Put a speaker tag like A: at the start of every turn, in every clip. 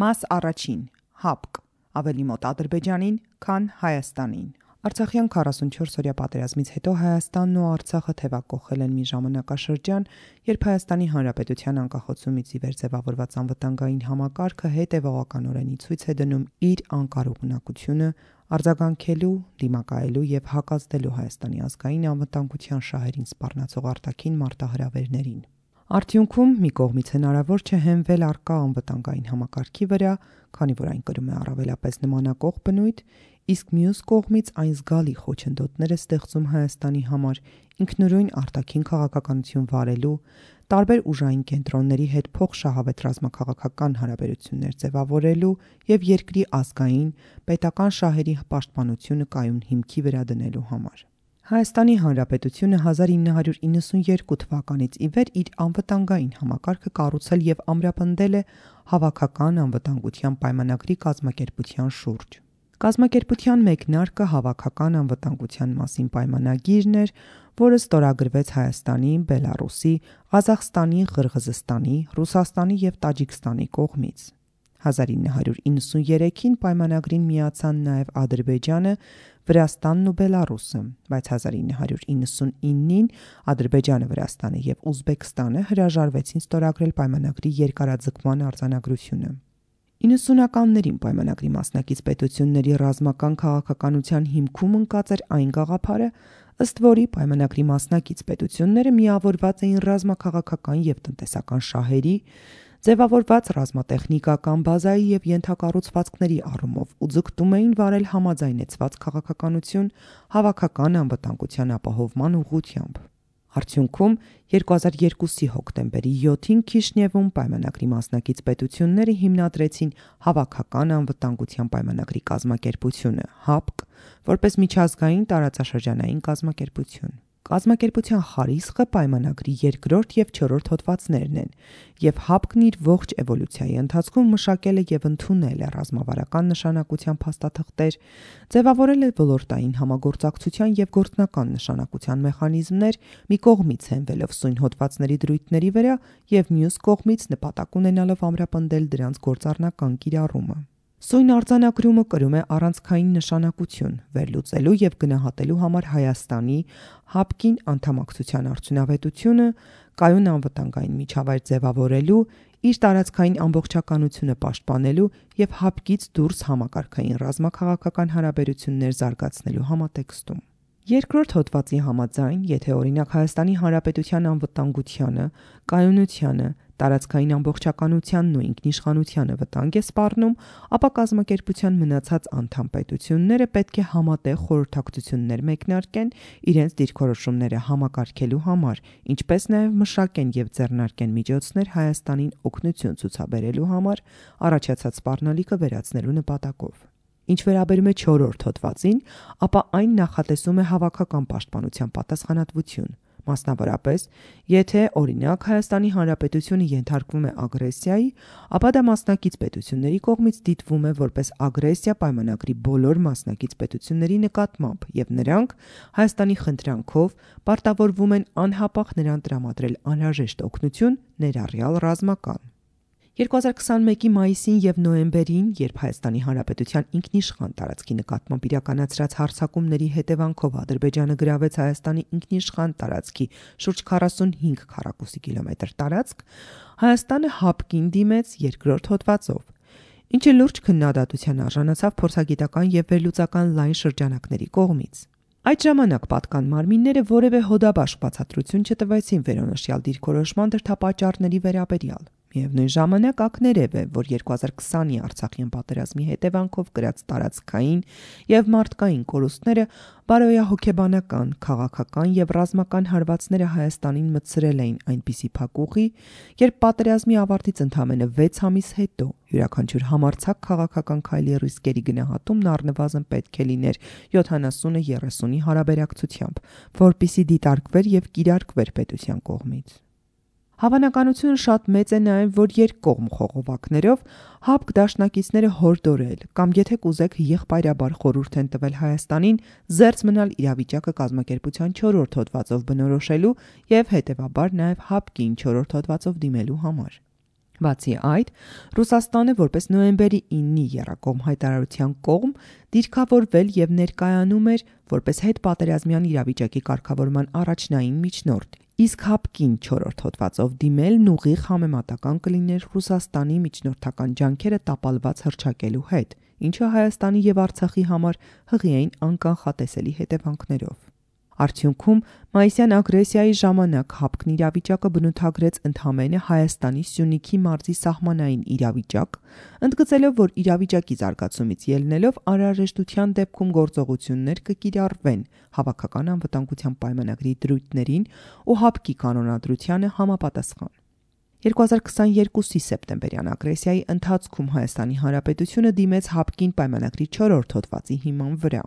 A: Մաս առաջին, ՀԱՊԿ, ավելի մոտ Ադրբեջանին, քան Հայաստանին։ Արցախյան 44-օրյա պատերազմից հետո Հայաստանն ու Արցախը թևակողել են մի ժամանակաշրջան, երբ Հայաստանի Հանրապետության անկախացումից ի վեր ձևավորված անվտանգային համակարգը հետևողականորեն ի ցույց է դնում իր անկարողունակությունը արձագանքելու, դիմակայելու եւ հակազդելու Հայաստանի ազգային անվտանգության շահերին սպառնացող արտաքին մարտահրավերներին։ Արդյունքում մի կողմից հնարավոր չէ հենվել առկա անվտանգային համակարգի վրա, քանի որ այն կրում է առավելապես նմանակող բնույթ, իսկ մյուս կողմից այն զգալի խոչընդոտներ է ստեղծում Հայաստանի համար ինքնուրույն արտաքին քաղաքականություն վարելու, տարբեր ուժային կենտրոնների հետ փոխշահավետ ռազմաքաղաքական հարաբերություններ ձևավորելու եւ երկրի ազգային, պետական շահերի պաշտպանությունը կայուն հիմքի վրա դնելու համար։ Հայաստանի Հանրապետությունը 1992 թվականից ի վեր իր անվտանգային համակարգը կառուցել եւ ամրապնդել է Հավաքական անվտանգության պայմանագրի կազմակերպության շուրջ։ Կազմակերպության մեկնարկը Հավաքական անվտանգության մասին պայմանագիրն էր, որը ստորագրվեց Հայաստանի, Բելառուսի, Ղազախստանի, Ղրղզստանի, Ռուսաստանի եւ Տաջիկստանի կողմից։ 1993-ին պայմանագրին միացան նաև Ադրբեջանը, Վրաստանն ու Բելառուսը, բայց 1999-ին Ադրբեջանը, Վրաստանը եւ Ուզբեկստանը հրաժարվեցին ստորագրել պայմանագրի երկարաձգման արձանագրությունը։ 90-ականներին պայմանագրի մասնակից պետությունների ռազմական քաղաքականության հիմքում ընկած էր այն գաղափարը, ըստ որի պայմանագրի մասնակից պետությունները միավորված էին ռազմաքաղաքական եւ տնտեսական շահերի, ձևավորված ռազմատեխնիկական բազայի եւ ենթակառուցվածքների առումով ու ձգտում էին վարել համաձայնեցված քաղաքականություն հավաքական անվտանգության ապահովման ուղղությամբ։ Արդյունքում 2002-ի հոկտեմբերի 7-ին Քիշնևում պայմանագրի մասնակից պետությունները հիմնադրեցին Հավաքական անվտանգության պայմանագրի կազմակերպությունը ՀԱՊԿ, որպես միջազգային տարածաշրջանային կազմակերպություն։ Կազմակերպության խարիսխը պայմանագրի երկրորդ եւ չորրորդ հոդվածներն են, եւ ՀԱՊԿ-ն իր ողջ էվոլյուցիայի ընթացքում մշակել է եւ ընդունել է ռազմավարական նշանակության փաստաթղթեր, ձևավորել է ոլորտային համագործակցության եւ գործնական նշանակության մեխանիզմներ, մի կողմից հենվելով սույն հոդվածների դրույթների վրա եւ մյուս կողմից նպատակ ունենալով ամրապնդել դրանց գործառնական կիրառումը։ Սույն արձանագրումը կրում է առանցքային նշանակություն վերլուծելու եւ գնահատելու համար Հայաստանի ՀԱՊԿ-ին անդամակցության արդյունավետությունը, կայուն անվտանգային միջավայր ձևավորելու, իր տարածքային ամբողջականությունը պաշտպանելու եւ ՀԱՊԿ-ից դուրս համակարգային ռազմաքաղաքական հարաբերություններ զարգացնելու համատեքստում։ Երկրորդ հոդվածի համաձայն, եթե օրինակ Հայաստանի Հանրապետության անվտանգությանը, կայունությանը, տարածքային ամբողջականությանն ու ինքնիշխանությանը վտանգ է սպառնում, ապա կազմակերպության մնացած անդամ պետությունները պետք է համատեղ խորհրդակցություններ մեկնարկեն իրենց դիրքորոշումները համակարգելու համար, ինչպես նաև մշակեն եւ ձեռնարկեն միջոցներ Հայաստանին օգնություն ցուցաբերելու համար առաջացած սպառնալիքը վերացնելու նպատակով։ Ինչ վերաբերում է չորրորդ հոդվածին, ապա այն նախատեսում է հավաքական պաշտպանության պատասխանատվություն։ Մասնավորապես, եթե օրինակ Հայաստանի Հանրապետությունը ենթարկվում է ագրեսիայի, ապա դա մասնակից պետությունների կողմից դիտվում է որպես ագրեսիա պայմանագրի բոլոր մասնակից պետությունների նկատմամբ եւ նրանք Հայաստանի խնդրանքով պարտավորվում են անհապաղ նրան տրամադրել անհրաժեշտ օգնություն, ներառյալ ռազմական։ 2021-ի մայիսին եւ նոյեմբերին, երբ Հայաստանի Հանրապետության ինքնիշխան տարածքի նկատմամբ իրականացրած հարձակումների հետևանքով Ադրբեջանը գրավեց Հայաստանի ինքնիշխան տարածքի շուրջ 45 քառակուսի կիլոմետր տարածք, Հայաստանը ՀԱՊԿ-ին դիմեց երկրորդ հոդվածով, ինչը լուրջ քննադատության արժանացավ փորձագիտական եւ վերլուծական լայն շրջանակների կողմից։ Այդ ժամանակ պատկան մարմինները որևէ հոդաբաշխ բացատրություն չտվեցին վերոնշյալ դիրքորոշման դրդապատճառների վերաբերյալ։ Միևնույն ժամանակ ակներև է, որ 2020-ի Արցախյան պատերազմի հետևանքով կրած տարածքային եւ մարդկային կորուստները բարոյահոգեբանական, քաղաքական եւ ռազմական հարվածները Հայաստանին մտցրել էին այնպիսի փակուղի, երբ պատերազմի ավարտից ընդամենը 6 ամիս հետո յուրաքանչյուր համարձակ քաղաքական քայլի ռիսկերի գնահատումն առնվազն պետք է լիներ 70-30-ի հարաբերակցությամբ, որպիսի դիտարկվեր եւ կիրարկվեր պետության կողմից։ Հավանականությունը շատ մեծ է նաև, որ երկկողմ խողովակներով ՀԱՊԿ դաշնակիցները հորդորել կամ եթե կուզեք եղբայրաբար խորհուրդ են տվել Հայաստանին զերծ մնալ իրավիճակը կազմակերպության 4-րդ հոդվածով բնորոշելու եւ հետեւաբար նաև ՀԱՊԿ-ին 4-րդ հոդվածով դիմելու համար։ Բացի այդ, Ռուսաստանը որպես նոյեմբերի 9-ի եռակողմ հայտարարության կողմ դիրքավորվել եւ ներկայանում էր որպես հետպատերազմյան իրավիճակի կարգավորման առաջնային միջնորդ, իսկ ՀԱՊԿ-ին 4-րդ հոդվածով դիմելն ուղիղ համեմատական կլիներ Ռուսաստանի միջնորդական ջանքերը տապալված հռչակելու հետ, ինչը Հայաստանի եւ Արցախի համար հղի էին անկանխատեսելի հետևանքներով։ Արդյունքում մայիսյան ագրեսիայի ժամանակ ՀԱՊԿ-ն իրավիճակը բնութագրեց ընդամենը Հայաստանի Սյունիքի մարզի սահմանային իրավիճակ, ընդգծելով, որ իրավիճակի զարգացումից ելնելով անհրաժեշտության դեպքում գործողություններ կկիրառվեն հավաքական անվտանգության պայմանագրի դրույթներին ու ՀԱՊԿ-ի կանոնադրությանը համապատասխան։ 2022-ի սեպտեմբերյան ագրեսիայի ընթացքում Հայաստանի Հանրապետությունը դիմեց ՀԱՊԿ-ին պայմանագրի 4-րդ հոդվածի հիման վրա։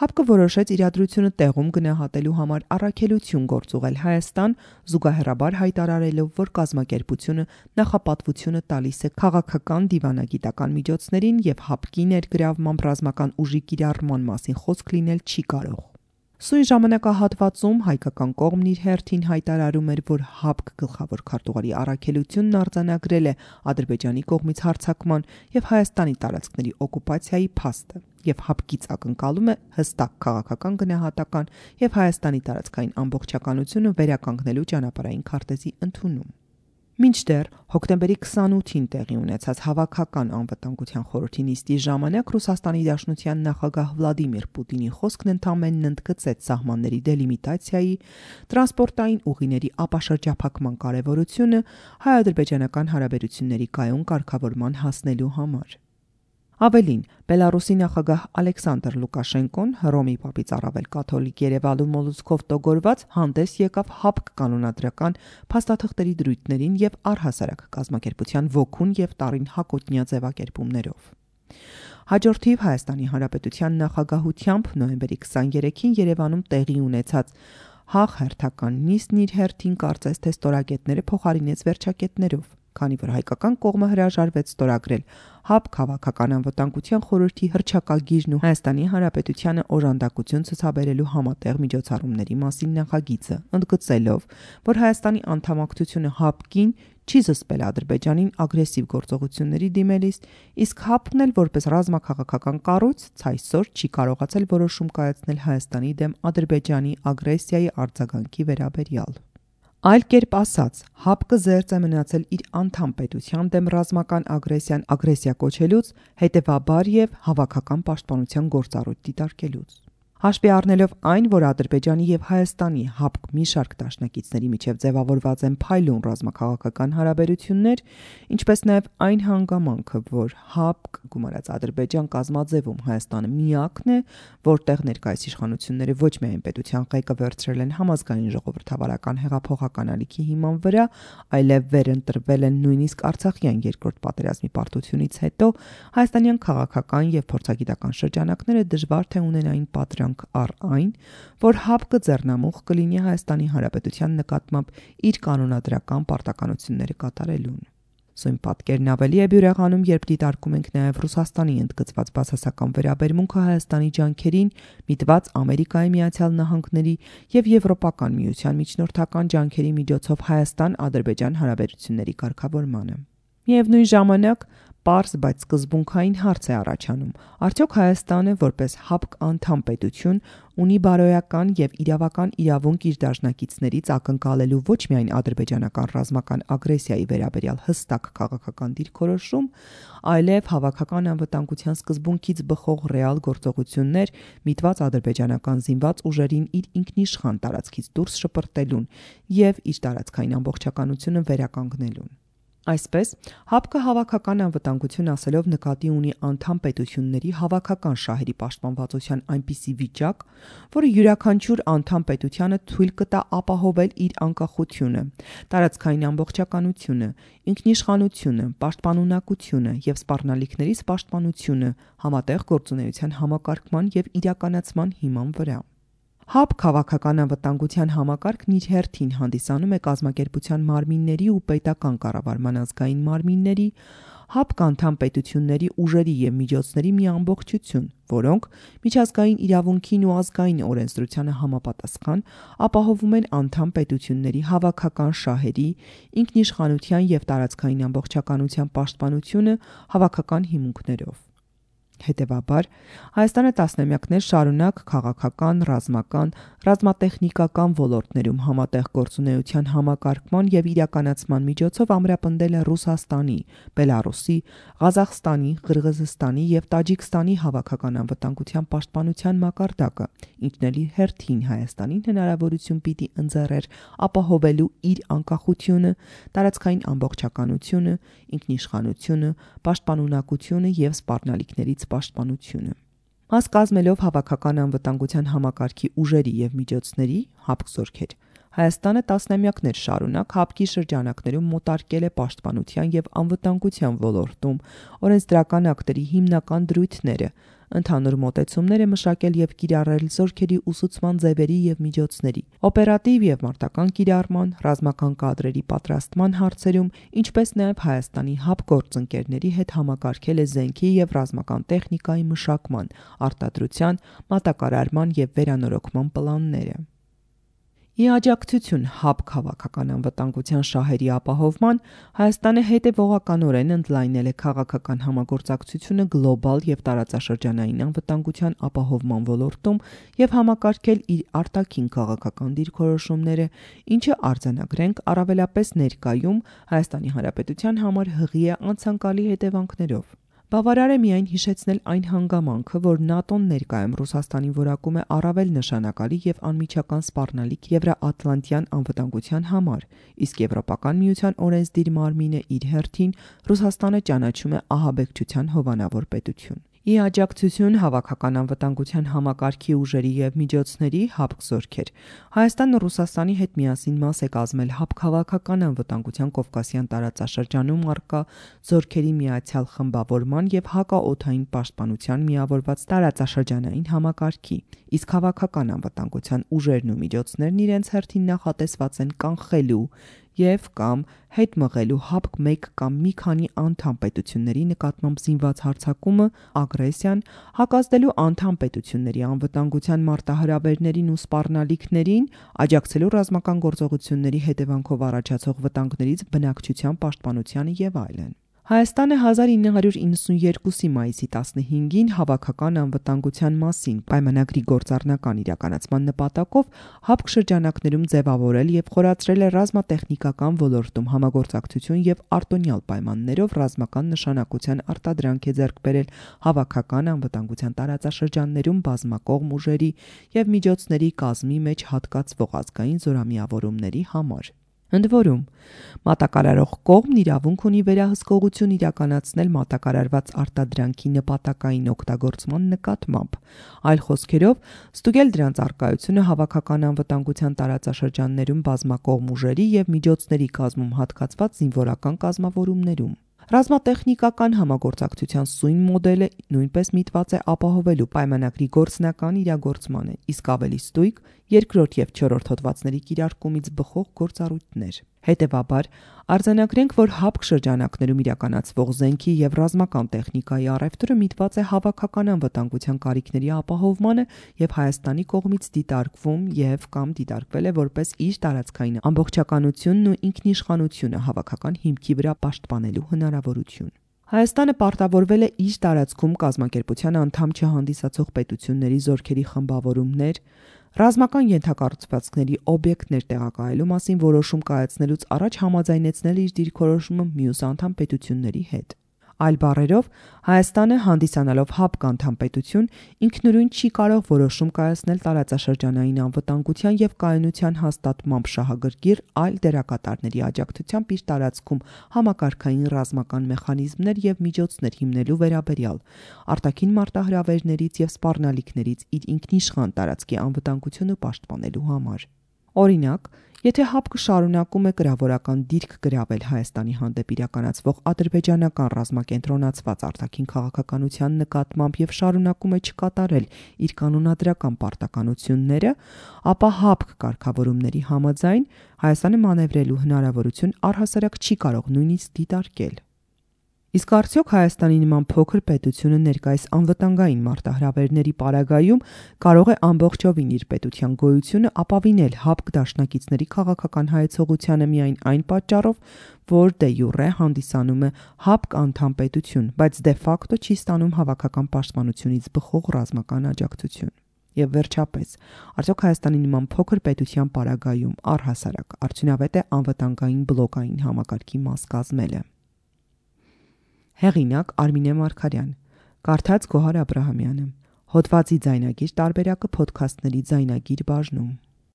A: ՀԱՊԿ-ը որոշեց իրադրությունը տեղում գնահատելու համար առաքելություն գործուղել Հայաստան, զուգահեռաբար հայտարարելով, որ կազմակերպությունը նախապատվությունը տալիս է քաղաքական դիվանագիտական միջոցներին եւ ՀԱՊԿ-ի ներգրավմամբ ռազմական ուժի կիրառման մասին խոսք լինել չի կարող։ Սույն ժամանակահատվածում հայկական կողմն իր հերթին հայտարարում էր, որ ՀԱՊԿ գլխավոր քարտուղարի առաքելությունն արձանագրել է Ադրբեջանի կողմից հարձակման եւ Հայաստանի տարածքների օկուպացիայի փաստը եւ ՀԱՊԿ-ից ակնկալում է հստակ քաղաքական գնահատական եւ Հայաստանի տարածքային ամբողջականությունը վերականգնելու ճանապարհային քարտեզի ընդունում։ Մինչդեռ հոկտեմբերի 28-ին տեղի ունեցած Հավաքական անվտանգության խորհրդի նիստի ժամանակ Ռուսաստանի Դաշնության նախագահ Վլադիմիր Պուտինի խոսքն ընդամենն ընդգծեց սահմանների դելիմիտացիայի, տրանսպորտային ուղիների ապաշրջափակման կարևորությունը հայ-ադրբեջանական հարաբերությունների կայուն կարգավորման հասնելու համար։ Ավելին, Բելարուսի նախագահ Ալեքսանդր Լուկաշենկոն Հռոմի Պապից առավել կաթոլիկ Երևանու մոլուցքով տոգորված հանդես եկավ ՀԱՊԿ կանոնադրական փաստաթղթերի դրույթներին եւ առհասարակ կազմակերպության ոգուն եւ տարին հակոտնյա ձևակերպումներով։ Հաջորդիվ Հայաստանի Հանրապետության նախագահությամբ նոյեմբերի 23-ին Երևանում տեղի ունեցած ՀԱՂ հերթական նիստն իր հերթին կարծես թե ստորագետները փոխարինեց վերջակետներով, քանի որ հայկական կողմը հրաժարվեց ստորագրել ՀԱՊԿ Հավաքական անվտանգության խորհրդի հռչակագիրն ու Հայաստանի Հանրապետությանը օժանդակություն ցուցաբերելու համատեղ միջոցառումների մասին նախագիծը, ընդգծելով, որ Հայաստանի անդամակցությունը ՀԱՊԿ-ին չի զսպել Ադրբեջանին ագրեսիվ գործողությունների դիմելիս, իսկ ՀԱՊԿ-ն էլ որպես ռազմաքաղաքական կառույց ցայսօր չի կարողացել որոշում կայացնել Հայաստանի դեմ Ադրբեջանի ագրեսիայի արձագանքի վերաբերյալ։ Այլ կերպ ասած, ՀԱՊԿ-ը զերծ է մնացել իր անդամ պետության դեմ ռազմական ագրեսիան ագրեսիա կոչելուց, հետևաբար եւ հավաքական պաշտպանության գործառույթ դիտարկելուց։ Հաշվի առնելով այն, որ Ադրբեջանի եւ Հայաստանի ՀԱՊԿ մի շարք դաշնակիցների միջև ձևավորված են փայլուն ռազմաքաղաքական հարաբերություններ, ինչպես նաեւ այն հանգամանքը, որ ՀԱՊԿ գումարած Ադրբեջան կազմաձևում Հայաստանը միակն է, որտեղ ներկայիս իշխանությունները ոչ միայն պետության ղեկը վերցրել են համազգային ժողովրդավարական հեղափոխական ալիքի հիման վրա, այլև վերընտրվել են նույնիսկ Արցախյան երկրորդ պատերազմի պարտությունից հետո, հայաստանյան քաղաքական եւ փորձագիտական շրջանակները դժվար թե ունենային պատրանք առ այն, որ ՀԱՊԿ-ը ձեռնամուխ կլինի Հայաստանի Հանրապետության նկատմամբ իր կանոնադրական պարտականությունները կատարելուն։ Սույն պատկերն ավելի է բյուրեղանում, երբ դիտարկում ենք նաև Ռուսաստանի ընդգծված բացասական վերաբերմունքը Հայաստանի ջանքերին, միտված Ամերիկայի Միացյալ Նահանգների եւ Եվրոպական միության միջնորդական ջանքերի միջոցով Հայաստան-Ադրբեջան հարաբերությունների կարգավորմանը։ Միևնույն ժամանակ պարզ, բայց սկզբունքային հարց է առաջանում. արդյոք Հայաստանը, որպես ՀԱՊԿ անդամ պետություն, ունի բարոյական եւ իրավական իրավունք իր դաշնակիցներից ակնկալելու ոչ միայն ադրբեջանական ռազմական ագրեսիայի վերաբերյալ հստակ քաղաքական դիրքորոշում, այլև հավաքական անվտանգության սկզբունքից բխող ռեալ գործողություններ միտված ադրբեջանական զինված ուժերին իր ինքնիշխան տարածքից դուրս շպրտելուն եւ իր տարածքային ամբողջականությունը վերականգնելուն։ Այսպես, ՀԱՊԿ-ը հավաքական անվտանգություն ասելով նկատի ունի անդամ պետությունների հավաքական շահերի պաշտպանվածության այնպիսի վիճակ, որը յուրաքանչյուր անդամ պետությանը թույլ կտա ապահովել իր անկախությունը, տարածքային ամբողջականությունը, ինքնիշխանությունը, պաշտպանունակությունը եւ սպառնալիքներից պաշտպանությունը համատեղ գործունեության համակարգման եւ իրականացման հիման վրա։ ՀԱՊԿ քաղաքական անվտանգության համակարգն իր հերթին հանդիսանում է կազմակերպության մարմինների ու պետական կառավարման ազգային մարմինների, ՀԱՊԿ անդամ պետությունների ուժերի և միջոցների մի ամբողջություն, որոնք միջազգային իրավունքին ու ազգային օրենսդրությանը համապատասխան ապահովում են անդամ պետությունների հավաքական շահերի, ինքնիշխանության և տարածքային ամբողջականության պաշտպանությունը հավաքական հիմունքներով։ Հետևաբար, Հայաստանը տասնամյակներ շարունակ քաղաքական, ռազմական, ռազմատեխնիկական ոլորտներում համատեղ գործունեության համակարգման և իրականացման միջոցով ամրապնդել է Ռուսաստանի, Բելառուսի, Ղազախստանի, Ղրղզստանի և Տաջիկստանի հավաքական անվտանգության պաշտպանության մակարդակը, ինչն էլ իր հերթին Հայաստանին հնարավորություն պիտի ընձեռեր ապահովելու իր անկախությունը, տարածքային ամբողջականությունը, ինքնիշխանությունը, պաշտպանունակությունը և սպառնալիքներից պաշտպանությունը։ Մաս կազմելով հավաքական անվտանգության համակարգի ուժերի և միջոցների ՀԱՊԿ զորքեր, Հայաստանը տասնամյակներ շարունակ ՀԱՊԿ-ի շրջանակներում մոտարկել է պաշտպանության և անվտանգության ոլորտում օրենսդրական ակտերի հիմնական դրույթները, ընդհանուր մոտեցումներ է մշակել և կիրառել զորքերի ուսուցման ձևերի և միջոցների, օպերատիվ և մարտական կիրառման, ռազմական կադրերի պատրաստման հարցերում, ինչպես նաև Հայաստանի ՀԱՊԿ գործընկերների հետ համակարգել է զենքի և ռազմական տեխնիկայի մշակման, արտադրության, մատակարարման և վերանորոգման պլանները։ Ի աջակցություն ՀԱՊԿ հավաքական անվտանգության շահերի ապահովման, Հայաստանը հետևողականորեն ընդլայնել է քաղաքական համագործակցությունը գլոբալ և տարածաշրջանային անվտանգության ապահովման ոլորտում և համակարգել իր արտաքին քաղաքական դիրքորոշումները, ինչը արձանագրենք առավելապես ներկայում ՀՀ համար հղի է անցանկալի հետևանքներով։ Բավարար է միայն հիշեցնել այն հանգամանքը, որ ՆԱՏՕ-ն ներկայում Ռուսաստանին որակում է առավել նշանակալի և անմիջական սպառնալիք Եվրաատլանտյան անվտանգության համար, իսկ Եվրոպական միության օրենսդիր մարմինը իր հերթին Ռուսաստանը ճանաչում է ահաբեկչության հովանավոր պետություն։ Ի աջակցություն հավաքական անվտանգության համակարգի ուժերի և միջոցների ՀԱՊԿ զորքեր, Հայաստանն ու Ռուսաստանի հետ միասին մաս է կազմել ՀԱՊԿ հավաքական անվտանգության Կովկասյան տարածաշրջանում առկա զորքերի միացյալ խմբավորման և հակաօդային պաշտպանության միավորված տարածաշրջանային համակարգի, իսկ հավաքական անվտանգության ուժերն ու միջոցներն իրենց հերթին նախատեսված են կանխելու և կամ հետ մղելու ՀԱՊԿ մեկ կամ մի քանի անդամ պետությունների նկատմամբ զինված հարձակումը, ագրեսիան, հակազդելու անդամ պետությունների անվտանգության մարտահրավերներին ու սպառնալիքներին, աջակցելու ռազմական գործողությունների հետևանքով առաջացող վտանգներից բնակչության պաշտպանությանը և այլն։ Հայաստանը 1992 մայիսի 15-ին հավաքական անվտանգության մասին պայմանագրի գործառնական իրականացման նպատակով ՀԱՊԿ շրջանակներում ձևավորել և խորացրել է ռազմատեխնիկական ոլորտում համագործակցություն և արտոնյալ պայմաններով ռազմական նշանակության արտադրանք է ձեռք բերել հավաքական անվտանգության տարածաշրջաններում բազմակողմ ուժերի և միջոցների կազմի մեջ հատկացվող ազգային զորամիավորումների համար։ Ընդ որում, մատակարարող կողմն իրավունք ունի վերահսկողություն իրականացնել մատակարարված արտադրանքի նպատակային օգտագործման նկատմամբ, այլ խոսքերով, ստուգել դրանց առկայությունը հավաքական անվտանգության տարածաշրջաններում բազմակողմ ուժերի և միջոցների կազմում հատկացված զինվորական կազմավորումներում։ Ռազմատեխնիկական համագործակցության սույն մոդելը նույնպես միտված է ապահովելու պայմանագրի գործնական իրագործմանը, իսկ ավելի ստույգ երկրորդ և չորրորդ հոդվածների կիրարկումից բխող գործառույթներ։ Հետևաբար, արձանագրենք, որ ՀԱՊԿ շրջանակներում իրականացվող զենքի և ռազմական տեխնիկայի առևտուրը միտված է հավաքական անվտանգության կարիքների ապահովմանը և Հայաստանի կողմից դիտարկվում և կամ դիտարկվել է որպես իր տարածքային ամբողջականությունն ու ինքնիշխանությունը հավաքական հիմքի վրա պաշտպանելու հնարավորություն։ Հայաստանը պարտավորվել է իր տարածքում կազմակերպության անդամ չհանդիսացող պետությունների զորքերի խմբավորումներ, ռազմական ենթակառուցվածքների օբյեկտներ տեղակայելու մասին որոշում կայացնելուց առաջ համաձայնեցնել իր դիրքորոշումը մյուս անդամ պետությունների հետ։ Այլ բառերով, Հայաստանը, հանդիսանալով ՀԱՊԿ անդամ պետություն, ինքնուրույն չի կարող որոշում կայացնել տարածաշրջանային անվտանգության և կայունության հաստատմամբ շահագրգիռ այլ դերակատարների աջակցությամբ իր տարածքում համակարգային ռազմական մեխանիզմներ և միջոցներ հիմնելու վերաբերյալ, արտաքին մարտահրավերներից և սպառնալիքներից իր ինքնիշխան տարածքի անվտանգությունը պաշտպանելու համար։ Օրինակ, եթե ՀԱՊԿ-ը շարունակում է կրավորական դիրք գրավել Հայաստանի հանդեպ իրականացվող ադրբեջանական ռազմակենտրոնացված արտաքին քաղաքականության նկատմամբ և շարունակում է չկատարել իր կանոնադրական պարտականությունները, ապա ՀԱՊԿ կարգավորումների համաձայն Հայաստանը մանևրելու հնարավորություն առհասարակ չի կարող նույնիսկ դիտարկել։ Իսկ արդյոք Հայաստանի նման փոքր պետությունը ներկայիս անվտանգային մարտահրավերների պարագայում կարող է ամբողջովին իր պետության գոյությունը ապավինել ՀԱՊԿ դաշնակիցների քաղաքական հայեցողությանը միայն այն պատճառով, որ դե յուրե հանդիսանում է ՀԱՊԿ անդամ պետություն, բայց դե ֆակտո չի ստանում հավաքական պաշտպանությունից բխող ռազմական աջակցություն։ Եվ վերջապես, արդյոք Հայաստանի նման փոքր պետության պարագայում առհասարակ արդյունավետ է անվտանգային բլոկային համակարգի մաս կազմելը։ Հեղինակ Արմինե Մարգարյան, կարդաց Գոհար Աբրահամյանը, հոդվածի ձայնագիր տարբերակը Փոդքասթների ձայնագիր բաժնում։